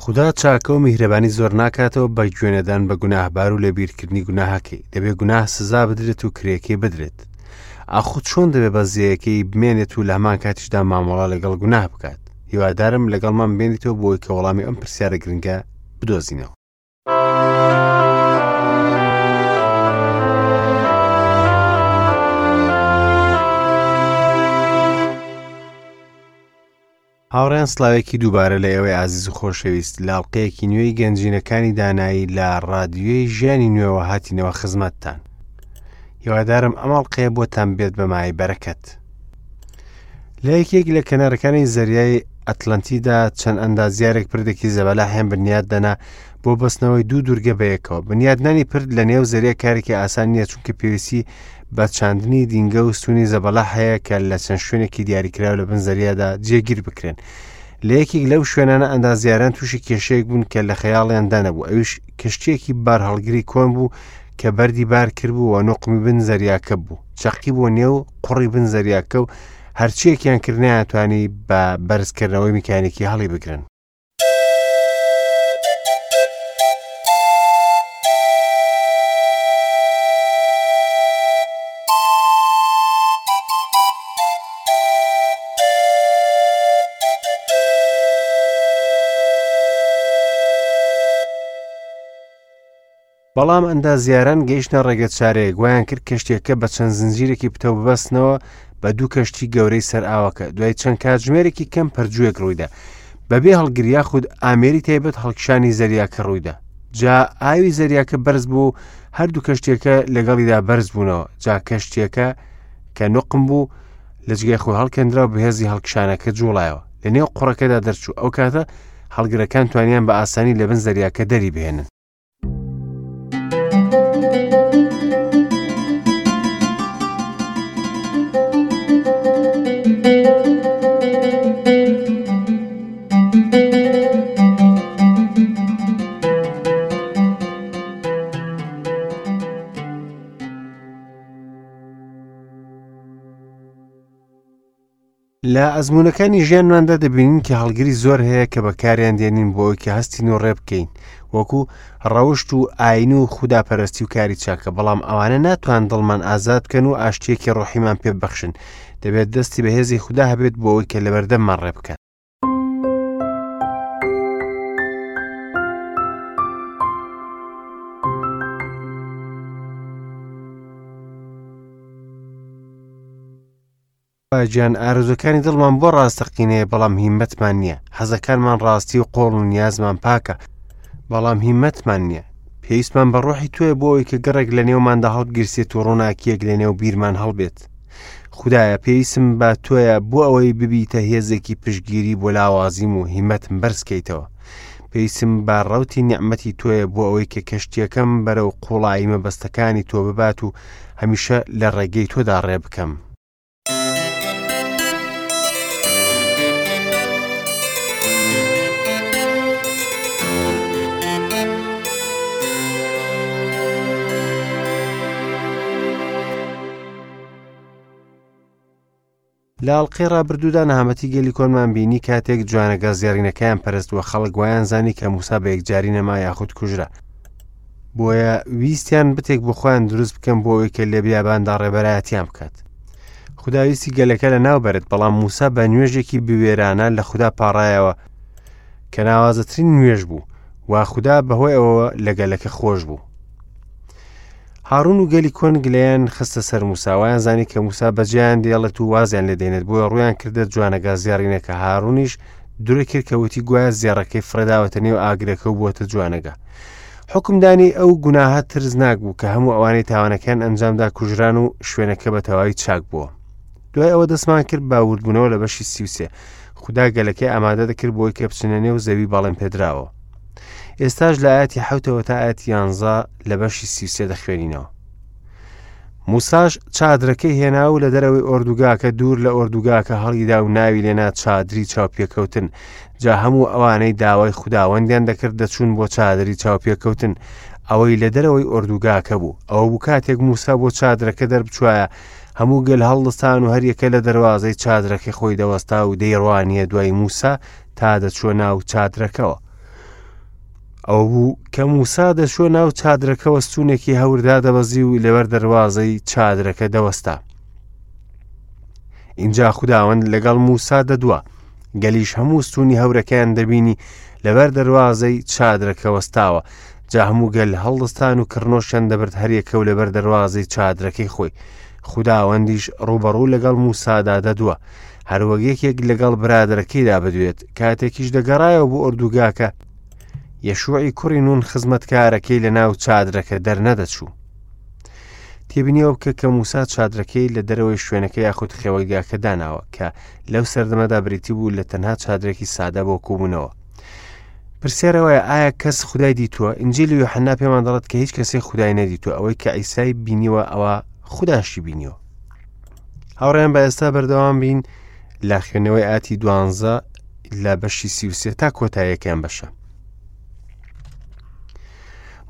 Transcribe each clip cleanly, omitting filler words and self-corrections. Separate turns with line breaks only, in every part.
خودا چاکە و میهرەبانی زۆر ناکاتەوە بە گوێنەدان بە گوناهبار و لەبیرکردنی گوناهەکەی. دەبێ گوناه سزا بدرێت و کرێکەی بدرێت. ئاخۆ چۆن دەبێ بەزەیەکەی بمێنێت و لە هەمان کاتیشدا مامەڵە لەگەڵ گوناه بکات؟ هیوادارم لەگەڵمان بێنیتەوە بۆی کە وەڵامی ئەم پرسیارە گرنگە بدۆزینەوە. هاوڕێیان سڵاوێکی دووبارە لە ئێوەی ئازیز و خۆشەویست لە ئەڵقەیەکی نوێی گەنجینەکانی دانایی لە ڕادیۆی ژیانی نوێوە هاتینەوە خزمەتتان هیوادارم ئەم ئەڵقەیە بۆتان بێت بە مای بەرەکەت لە یەکێک لە کەنارەکانی زەریای ئەتلەنتیدا چەند ئەندازیارێک پردێکی زەبەلاحیان بنیات دەنا بۆ بەستنەوەی دوو دوورگە بەیەکەوە بنیادنانی پرد لە نێو زەریا کارێکی ئاسان نییە چونکە پێویستی بە چاندنی دینگە و ستونی زەبەلاح هەیە کە لە چەند شوێنێکی دیاریکراو لە بن زەریادا جێگیر بکرێن لە یەکێک لەو شوێنانە ئەندازیاران تووشی کێشەیەک بوون کە لە خەیاڵیاندا نەبوو ئەویش کەشتیەکی بارهەڵگری کۆن بوو کە بەردی بار کردبوو و نوقمی بن زەریاکە بوو چەقی بۆ نێو قوڕی بن زەریاکە و هەرچیەکیان کرد نەیانتوانی بە بەرزکردنەوەی میکانیکی هەڵی بگرن. بەڵام ئەندازیاران گەیشتنە ڕێگەچارەیەک، وایان کرد کەشتییەکە بە چەند زنجیرێکی پتەو ببەستنەوە بە دوو کەشتی گەورەی سەر ئاوەکە. دوای چەند کاتژمێرێکی کەم پەرجوویەک ڕوویدا. بەبێ هەڵگر یاخود ئامێری تایبەت هەڵکشانی زەریاکە ڕوویدا. جا ئاوی زەریاکە بەرز بوو و هەردوو کەشتیەکە لەگەڵیدا بەرز بوونەوە. جا کەشتیەکە کە نوقم بوو لە جگای خۆی هەڵکەندرا و بەهێزی هەڵکشانەکە جوڵایەوە. لە نێو قوڕەکەدا دەرچوو. ئەو کاتە هەڵگرەکان توانیان بە ئاسانی لە بن زەریاکە دەری بهێنن. لە ئەزموونەکانی ژیانماندا دەبینین کە هەڵگری زۆر هەیە کە بەکاریان دێنین بۆ ئەوەی کە هەستین و ڕێ بکەین وەکو ڕەوشت و ئاین و خوداپەرستی و کاری چاکە بەڵام ئەوانە ناتوان دڵمان ئازاد بکەن و ئاشتیەکی ڕۆحیمان پێ ببەخشن دەبێت دەستی بەهێزی خودا هەبێت بۆ ئەوەی کە لەبەردەممان ڕێ بکات. خوا گیان ئارەزوەکانی دڵمان بۆ ڕاستەقینەیە بەڵام هیمەتمان نییە حەزەکانمان ڕاستی و قۆڵ و نیازمان پاکە بەڵام هیمەتمان نییە پێویستمان بە ڕۆحی تۆیە بۆ ئەوەی کە گڕێک لە نێوماندا هەڵبگیرسێت و ڕووناکیەک لە نێو بیرمان هەڵبێت خدایە پێویستم بە تۆیە بۆ ئەوەی ببیتە هێزێکی پشتگیری بۆ لاوازیم و هیمەتم بەرزکەیتەوە پێویستم بە ڕوتی نیعمەتی تۆیە بۆ ئەوەی کە کەشتیەکەم بەرەو قوڵایی مەبەستەکانی تۆ ببات و هەمیشە لە ڕێگەی تۆدا ڕێ بکەم. لە ئەڵقەی ڕابردوودا نەهامەتی گەلی کۆنمان بینی کاتێک جوانەگا زێڕینەکەیان پەرست وە خەڵک وایان زانی کە موسا بە یەکجاری نەما یاخود کوژرا بۆیە ویستیان بتێک بۆ خۆیان دروست بکەن بۆ ئەوەی کە لە بیاباندا ڕێبەرایەتیان بکات خودا ویستی گەلەکە لە ناو بەرێت بەڵام موسا بە نوێژێکی بوێرانە لە خودا پاڕایەوە کە ناوازەترین نوێژ بوو و خودا بەهۆی ئەوەوە لە گەلەکە خۆش بوو هاڕون و گەلی کۆن گلەیان خستە سەر موسا وایان زانی کە موسا بەجێیان دێڵێت و وازیان لێ دێنێت بۆیە ڕویان کردە جوانەگا زێڕینەکە هاڕونیش درۆی کرد کە وتی گوایە زێڕەکەی فڕێداوەتە نێو ئاگرەکە و بووەتە جوانەگا حکمدانی ئەو گوناهە ترسناک بوو کە هەموو ئەوانەی تاوانەکەیان ئەنجامدا کوژران و شوێنەکە بە تەواوی چاک بووە دوای ئەوە دەستمان کرد بە وردبوونەوە لە بەشی 33 خودا گەلەکەی ئامادە دەکرد بۆی کە بچنە نێو زەوی بەڵێن پێدراوە ئێستاش لە ئاەتی حوتەوە تا ئاەتی یانزە لە بەشی 33 دەخوێنینەوە موساش چادرەکەی هێنا و لە دەرەوەی ئۆردوگاکە دوور لە ئۆردوگاکە هەڵیدا و ناوی لێنا چادری چاوپێکەوتن جا هەموو ئەوانەی داوای خوداوەندیان دەکرد دەچوون بۆ چادری چاوپێکەوتن ئەوەی لە دەرەوەی ئۆردوگاکە بوو ئەوە بوو کاتێک موسا بۆ چادرەکە دەربچوایە هەموو گەل هەڵدەستان و هەریەکە لە دەروازەی چادرەکەی خۆی دەوەستا و دەیڕوانیە دوای موسا تا دەچووە ناو چادرەکەوە. ئەوە بوو کە موسا دەچووە ناو چادرەکەوە ستوونێکی هەور دادەبەزی و لەبەر دەروازەی چادرەکە دەوەستا. ئینجا خوداوەند لەگەڵ موسا دەدوا. گەلیش هەموو ستوونی هەورەکەیان دەبینی لەبەر دەروازەی چادرەکە وەستاوە. جا هەموو گەل هەڵدەستان و کڕنۆشیان دەبرد هەریەکە و لەبەر دەروازەی چادرەکەی خۆی. خوداوەندیش ڕووبەڕوو لەگەڵ موسادا دەدوا. هەروەک یەکێک لەگەڵ برادەرەکەیدا بدوێت. کاتێکیش دەگەڕایەوە بۆ ئۆردوگاکە، یەشوعی کوڕی نون خزمەتکارەکەی لە ناو چادرەکە دەرنەدەچوو. تێبینیەوە بکە کە موسا چادرەکەی لە دەرەوەی شوێنەکە یاخود خێوەتگاکە داناوە کە لەو سەردەمەدا بریتی بوو لە تەنها چادرێکی سادە بۆ کۆبوونەوە. پرسیارەوەیە ئایا کەس خدای دیتووە؟ ئینجیلی یۆحەنا پێمان دەڵێت کە هیچ کەسێک خدای نەدیتووە، ئەوەی کە عیسای بینیوە ئەوە خوداشی بینیوە. هاوڕێیان بە ئێستا بەردەوام بین لە خوێندنەوەی ئاتی دوانزە لە بەشی 33 تا کۆتاییەکەیان بەشە.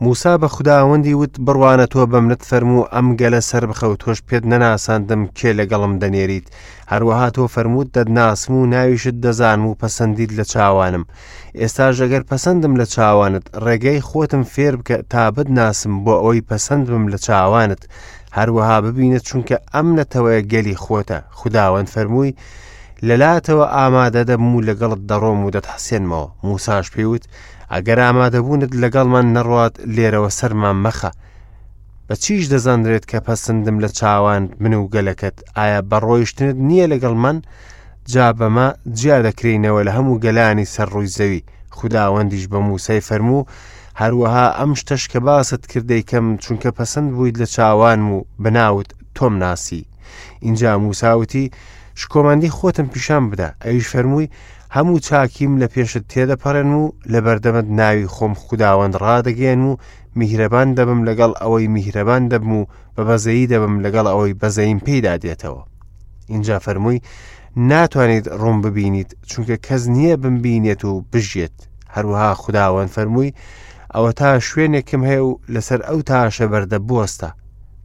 موسا بە خوداوەندی وت بڕوانە تۆ بە منت فەرموو ئەم گەلە سەر بخە و تۆش پێت نەناساندم کێ لەگەڵم دەنێریت هەروەها تۆ فەرمووت دەتناسم و ناویشت دەزانم و پەسەندیت لە چاوانم ئێستاش ئەگەر پەسەندم لە چاوانت ڕێگەی خۆتم فێر بکە تا بتناسم بۆ ئەوەی پەسەند بم لە چاوانت هەروەها ببینە چونکە ئەم نەتەوەیە گەلی خۆتە خوداوەند فەرمووی لەلاتەوە ئامادە دەبم و لەگەڵت دەڕۆم و دەتحەسێنمەوە موساش پێی وت ئەگەر ئامادەبوونت لەگەڵمان نەڕوات لێرەوە سەرمان مەخە بە چیش دەزانرێت کە پەسەندم لە چاوان من و گەلەکەت ئایا بە ڕۆیشتنت نییە لەگەڵ من جا بەمە جیا دەکرێینەوە لە هەموو گەلانی سەر ڕووی زەوی خوداوەندیش بە موسای فەرموو هەروەها ئەم شتەش کە باست کرد دەیکەم چونکە پەسەند بوویت لە چاوانم و بەناوت تۆم ناسی ئینجا موسا وتی شکۆمەندی خۆتم پیشان بدە ئەویش فەرمووی هەموو چاکیم لە پێشت تێدەپەڕێنم و لە بەردەمت ناوی خۆم خوداوەند ڕادەگەیەنم و میهرەبان دەبم لەگەڵ ئەوەی میهرەبان دەبم و بە بەزەیی دەبم لەگەڵ ئەوەی بەزەییم پێیدا دێتەوە ئینجا فەرمووی ناتوانیت ڕووم ببینیت چونکە کەس نییە بمبینێت و بژیێت هەروەها خوداوەند فەرمووی ئەوە تا شوێنێکم هەیە و لەسەر ئەو تاشە بەردە بوەستە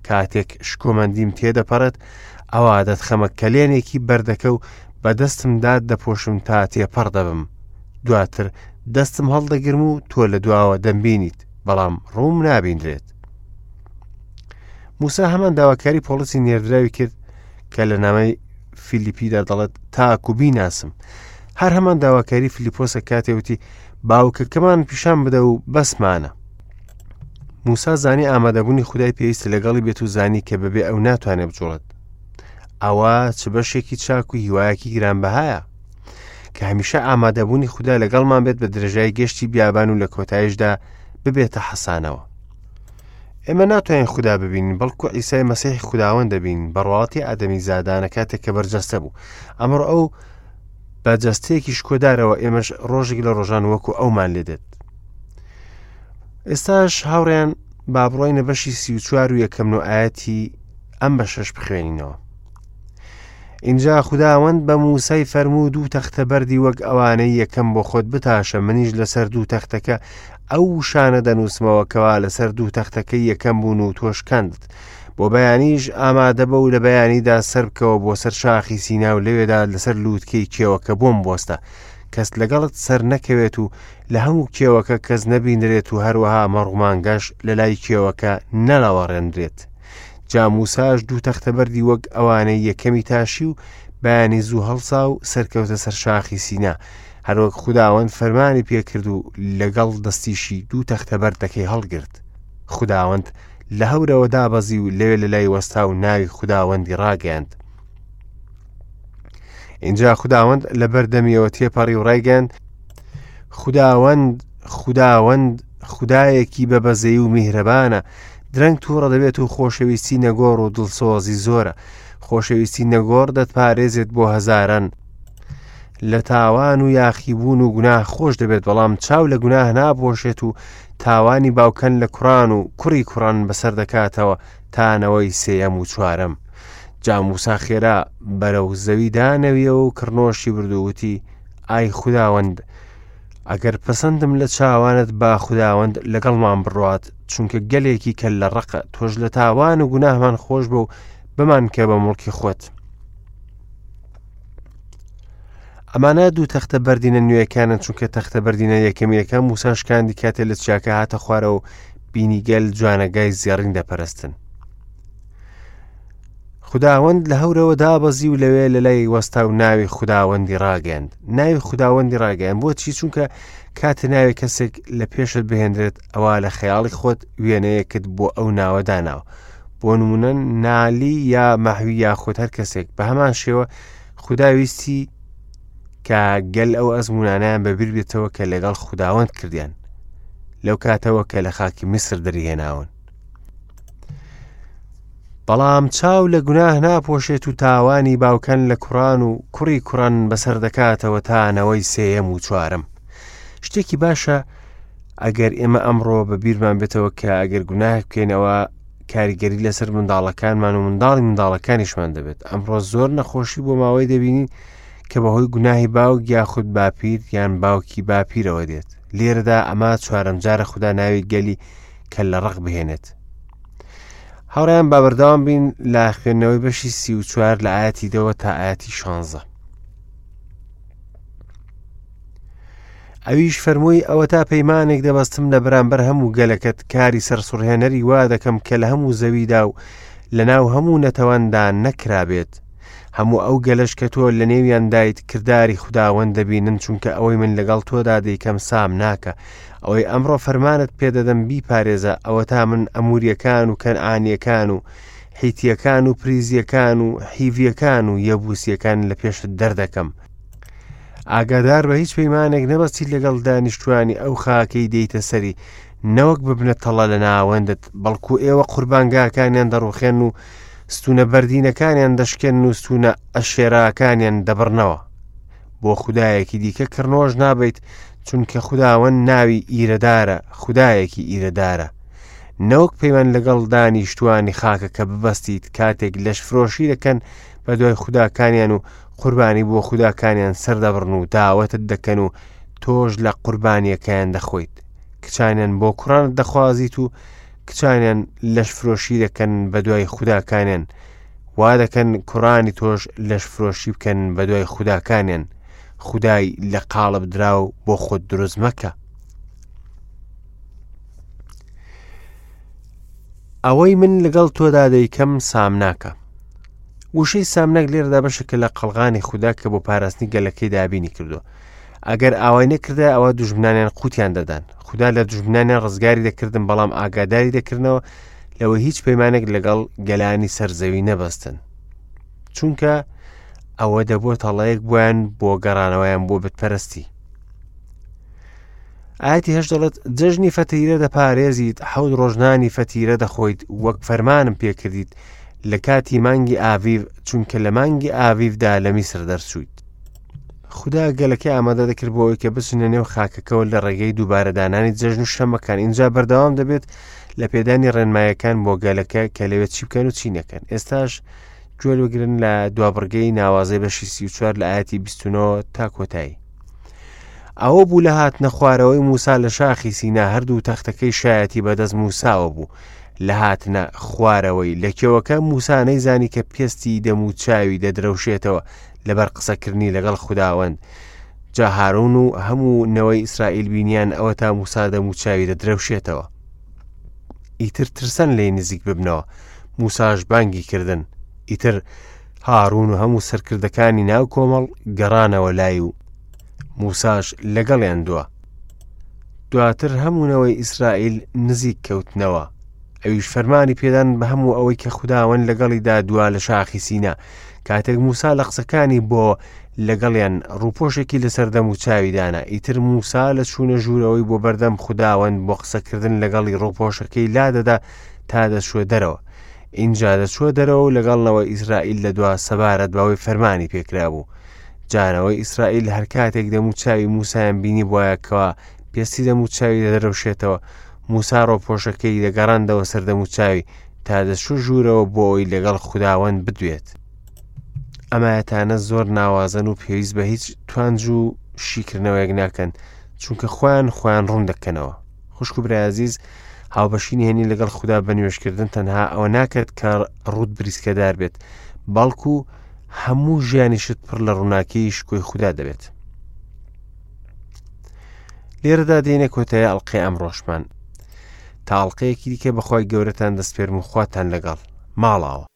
کاتێک شکۆمەندیم تێدەپەڕێت ئەوا دەتخەمە کەلێنێکی بەردەکە و بە دەستم دات دەپۆشم تا تێپەڕ دەبم دواتر دەستم هەڵدەگرم و تۆ لە دواوە دەمبینیت بەڵام ڕووم نابینرێت موسا هەمان داواکاری پۆڵسی نێردراوی کرد کە لە نامەی فیلیپیدا دەڵێت تاکو بیناسم هەر هەمان داواکاری فلیپۆسە کاتێ وتی باوکەکەمان پیشان بدە و بەسمانە موسا زانی ئامادەبوونی خودای پێویستە لەگەڵی بێت و زانی کە بەبێ ئەو ناتوانێت بجوڵێت ئەوە چ بەشێکی چاک و هیوایەکی گرانبەهایە کە هەمیشە ئامادەبوونی خودا لەگەڵمان بێت بە درێژای گەشتی بیابان و لە کۆتایشدا ببێتە حەسانەوە ئێمە ناتوانین خودا ببینین بەڵکو عیسای مەسیحی خوداوەند دەبینین بە ڕواڵەتی ئادەمی زادانە کاتێک کە بەرجەستە بوو ئەمڕۆ ئەو بە جەستەیەکی شکۆدارەوە ئێمەش ڕۆژێک لە ڕۆژان وەکو ئەومان لێ دێت ئێستاش هاوڕێیان با بڕۆینە بەشی 34 و یەکەم و ئاەتی ئەم بەشەش بخوێنینەوە ئینجا خوداوەند بە موسای فەرموو دوو تەختە بەردی وەک ئەوانەی یەکەم بۆ خۆت بتاشە منیش لەسەر دوو تەختەکە ئەو وشانە دەنووسمەوە کەوا لەسەر دوو تەختەکەی یەکەم بوون و تۆ شکاندت بۆ بەیانیش ئامادە بە و لە بەیانیدا سەربکەوە بۆ سەر شاخی سینا و لەوێدا لەسەر لووتکەی کێوەکە بۆم بوەستە کەس لەگەڵت سەر نەکەوێت و لە هەموو کێوەکە کەس نەبینرێت و هەروەها مەڕومانگەش لە لای کێوەکە نەلەوەڕێنرێت جا موساش دوو تەختە بەردی وەک ئەوانەی یەکەمی تاشی و بەیانی زوو هەڵسا و سەرکەوتە سەر شاخی سینا هەروەک خوداوەند فەرمانی پێکرد و لەگەڵ دەستیشی دوو تەختە بەردەکەی هەڵگرت خوداوەند لە هەورەوە دابەزی و لەوێ لە لای وەستا و ناوی خوداوەندی ڕاگەیاند اینجا خوداوەند لە بەردەمیەوە تێپەڕی و ڕایگەیاند خوداوەند خوداوەند خودایەکی بە بەزەیی و میهرەبانە درەنگ تووڕە دەبێت و خۆشەویستی نەگۆڕ و دڵسۆزی زۆرە خۆشەویستی نەگۆڕ دەتپارێزێت بۆ هەزاران لە تاوان و یاخیبوون و گوناه خۆش دەبێت بەڵام چاو لە گوناه ناپۆشێت و تاوانی باوکان لە کوڕان و کوڕی کوڕان بەسەر دەکاتەوە تا نەوەی سێیەم و چوارەم جا موسا خێرا بەرەو زەوی دانەویەوە و کڕنۆشی برد و وتی ئای خوداوەند ئەگەر پەسەندم لە چاوانت با خوداوەند لەگەڵمان بڕوات چونکە گەلێکی کە لە ڕقە تۆش لە تاوان و گوناهمان خۆش بە و بمانکە بە مڵکی خۆت. ئەمانە دوو تەختە بەردینە نوێیەکانن چونکە تەختە بەردینە یەکەمینەکە موسا شکاندی کاتێ لە چیاکە هاتە خوارەوە و بینی گەل جوانەگای زێڕین دەپەرستن. خوداوەند لە هەورەوە دابەزی و لەوێ لە لای وەستا و ناوی خوداوەندی ڕاگەیاند. ناوی خوداوەندی ڕاگەیاند بۆچی؟ چونکە کاتێ ناوی کەسێک لە پێشت بهێنرێت ئەوا لە خەیاڵی خۆت وێنەیەکت بۆ ئەو ناوە داناوە. بۆ نمونە نالی یا مەحوی یاخود هەر کەسێک بە هەمان شێوە خودا ویستی کە گەل ئەو ئەزمونانیان بەبیر بێتەوە کە لەگەڵ خوداوەند کردیان لەو کاتەوە کە لە خاکی میسر دەریهێناون. بەڵام چاو لە گوناه ناپۆشێت و تاوانی باوکان لە کوڕان و کوڕی کوڕان بەسەر دەکاتەوە تا نەوەی سێیەم و چوارەم. شتێکی باشە ئەگەر ئێمە ئەمڕۆ بە بیرمان بێتەوە کە ئەگەر گوناه بکەینەوە کاریگەری لەسەر منداڵەکانمان و منداڵی منداڵەکانیشمان دەبێت ئەمڕۆ زۆر نەخۆشی بۆ ماوەی دەبینین کە بەهۆی گوناهی باوک یاخود باپیر یان باوکی باپیرەوە دێت لێرەدا ئەمە چوارەم جارە خودا ناوی گەلی کە لە ڕق بهێنێت هاوڕیان با بەردەوام بین لە خوێندنەوەی بەشی 34 لە ئاەتی دەوە تا ئاەتی 16 ئەویش فەرمووی ئەوەتا پەیمانێک دەبەستم لە بەرامبەر هەموو گەلەکەت کاری سەرسوڕهێنەری وا دەکەم کە لە هەموو زەویدا و لەناو هەموو نەتەوەندا نەکرابێت هەموو ئەو گەلەش کە تۆ لە نێویاندایت کرداری خوداوەند دەبینن چونکە ئەوەی من لەگەڵ تۆدا دەیکەم سام ناکە ئەوەی ئەمڕۆ فەرمانت پێدەدەم بیپارێزە ئەوەتا من ئەموریەکان و کەنعانیەکان و حیتیەکان و پریزیەکان و حیڤیەکان و یەبوسیەکان لە پێشت دەردەکەم ئاگادار بە هیچ پەیمانێک نەبەستیت لەگەڵ دانیشتوانی ئەو خاکەی دێیتە سەری نەوەک ببنە تەڵە لە ناوەندت بەڵکو ئێوە قوربانگاکانیان دەڕوخێن و ستونە بەردینەکانیان دەشکێن و ستونە ئەشێراکانیان دەبڕنەوە بۆ خودایەکی دیکە کڕنۆش نابیت چونکە خوداوەند ناوی ئیرەدارە خودایەکی ئیرەدارە نەوەک پەیمان لەگەڵ دانیشتوانی خاکەکە ببەستیت کاتێک لەشفرۆشی دەکەن بە دوای خوداکانیان و قوربانی بۆ خوداکانیان سەردەبڕن و داوەتت دەکەن و تۆش لە قوربانیەکەیان دەخۆیت کچانیان بۆ کوڕانت دەخوازیت و کچانیان لەشفرۆشی دەکەن بە دوای خوداکانیان وا دەکەن کوڕانی تۆش لەشفرۆشی بکەن بە دوای خوداکانیان خودای لە قاڵب دراو بۆ خۆت دروست مەکە ئەوەی من لەگەڵ تۆدا دەیکەم سامناکە وشەی سامناک لێرەدا بەشێکە لە قەڵغانی خودا کە بۆ پاراستنی گەلەکەی دابینی کردووە ئەگەر ئاوای نەکردای ئەوە دوژمنانیان قوتیان دەدان خودا لە دوژمنانیان ڕزگاری دەکردن بەڵام ئاگاداری دەکردنەوە لەوە هیچ پەیمانێک لەگەڵ گەلانی سەرزەوی نەبەستن چونکە ئەوە دەبووە تەڵەیەک بۆیان بۆ گەڕانەوەیان بۆ بتپەرستی ئاەتی هەش دەڵێت جەژنی فەتیرە دەپارێزیت حەوت ڕۆژنانی فەتیرە دەخۆیت وەک فەرمانم پێکردیت لە کاتی مانگی ئاڤیڤ چونکە لە مانگی ئاڤیڤدا لە میسر دەرچوویت خودا گەلەکەی ئامادە دەکرد بۆ ئەوەی کە بچنە نێو خاکەکەوە لە ڕێگەی دووبارە دانانی جەژن و شەمەکان ئینجا بەردەوام دەبێت لە پێدانی ڕێنمایەکان بۆ گەلەکە کە لەوێ چی بکەن و چی نەکەن ئێستاش گوێ بگرن لە دوابڕگەی ناوازەی بەشی 34 لە ئاەتی 29 تا کۆتایی ئەوە بوو لە هاتنە خوارەوەی موسا لە شاخی سینا هەردوو تەختەکەی شایەتی بەدەست موساوە بوو لە هاتنە خوارەوەی لە کێوەکە موسا نەیزانی کە پێستی دەم و چاوی دەدرەوشێتەوە لەبەر قسەکردنی لەگەڵ خوداوەند جا هارون و هەموو نەوەی ئیسرائیل بینیان ئەوە تا موسا دەم و چاوی دەدرەوشێتەوە ئیتر ترسان لێی نزیک ببنەوە موساش بانگی کردن ئیتر هارون و هەموو سەرکردەکانی ناو کۆمەڵ گەڕانەوە لای و موساش لەگەڵیان دوا دواتر هەموو نەوەی ئیسرائیل نزیک کەوتنەوە ئەویش فەرمانی پێدان بە هەموو ئەوەی کە خوداوەند لەگەڵیدا دوا لە شاخی سینا کاتێک موسا لە قسەکانی بۆ لەگەڵیان ڕووپۆشێکی لەسەر دەم و چاوی دانا ئیتر موسا لە چوونە ژوورەوەی بۆ بەردەم خوداوەند بۆ قسەکردن لەگەڵی ڕووپۆشەکەی لا دەدا تا دەچووە دەرەوە ئینجا دەچووە دەرەوە و لەگەڵ نەوەی ئیسرائیل دەدوا سەبارەت بەوەی فەرمانی پێکرابوو جا نەوەی ئیسرائیل هەر کاتێک دەم و چاوی موسایان بینی بواە کەوا پێستی دەم و چاوی دەدرەوشێتەوە موسا ڕۆپۆشەکەی دەگەڕاندەوە سەر دەم و چاوی تا دەچوو ژوورەوە بۆ ئەوی لەگەڵ خوداوەند بدوێت ئەمایەتانە زۆر ناوازەن و پێویست بە هیچ توانج و شیکردنەوەیەک ناکەن چونکە خۆیان خۆیان ڕوون دەکەنەوە خوشک و برای ئازیز هاوبەشی نهێنی لەگەڵ خودا بە نوێژکردن تەنها ئەوە ناکات کە ڕوت بریسکەدار بێت بەڵکو هەموو ژیانیشت پڕ لە ڕووناکیی شکۆی خودا دەبێت. لێرەدا دێنە کۆتایی ئەڵلقەی ئەمڕۆشمان. تا ئەڵلقەیەکی دیکە بەخوای گەورەتان دەسپێرم و خواتان لەگەڵ. ماڵاوە.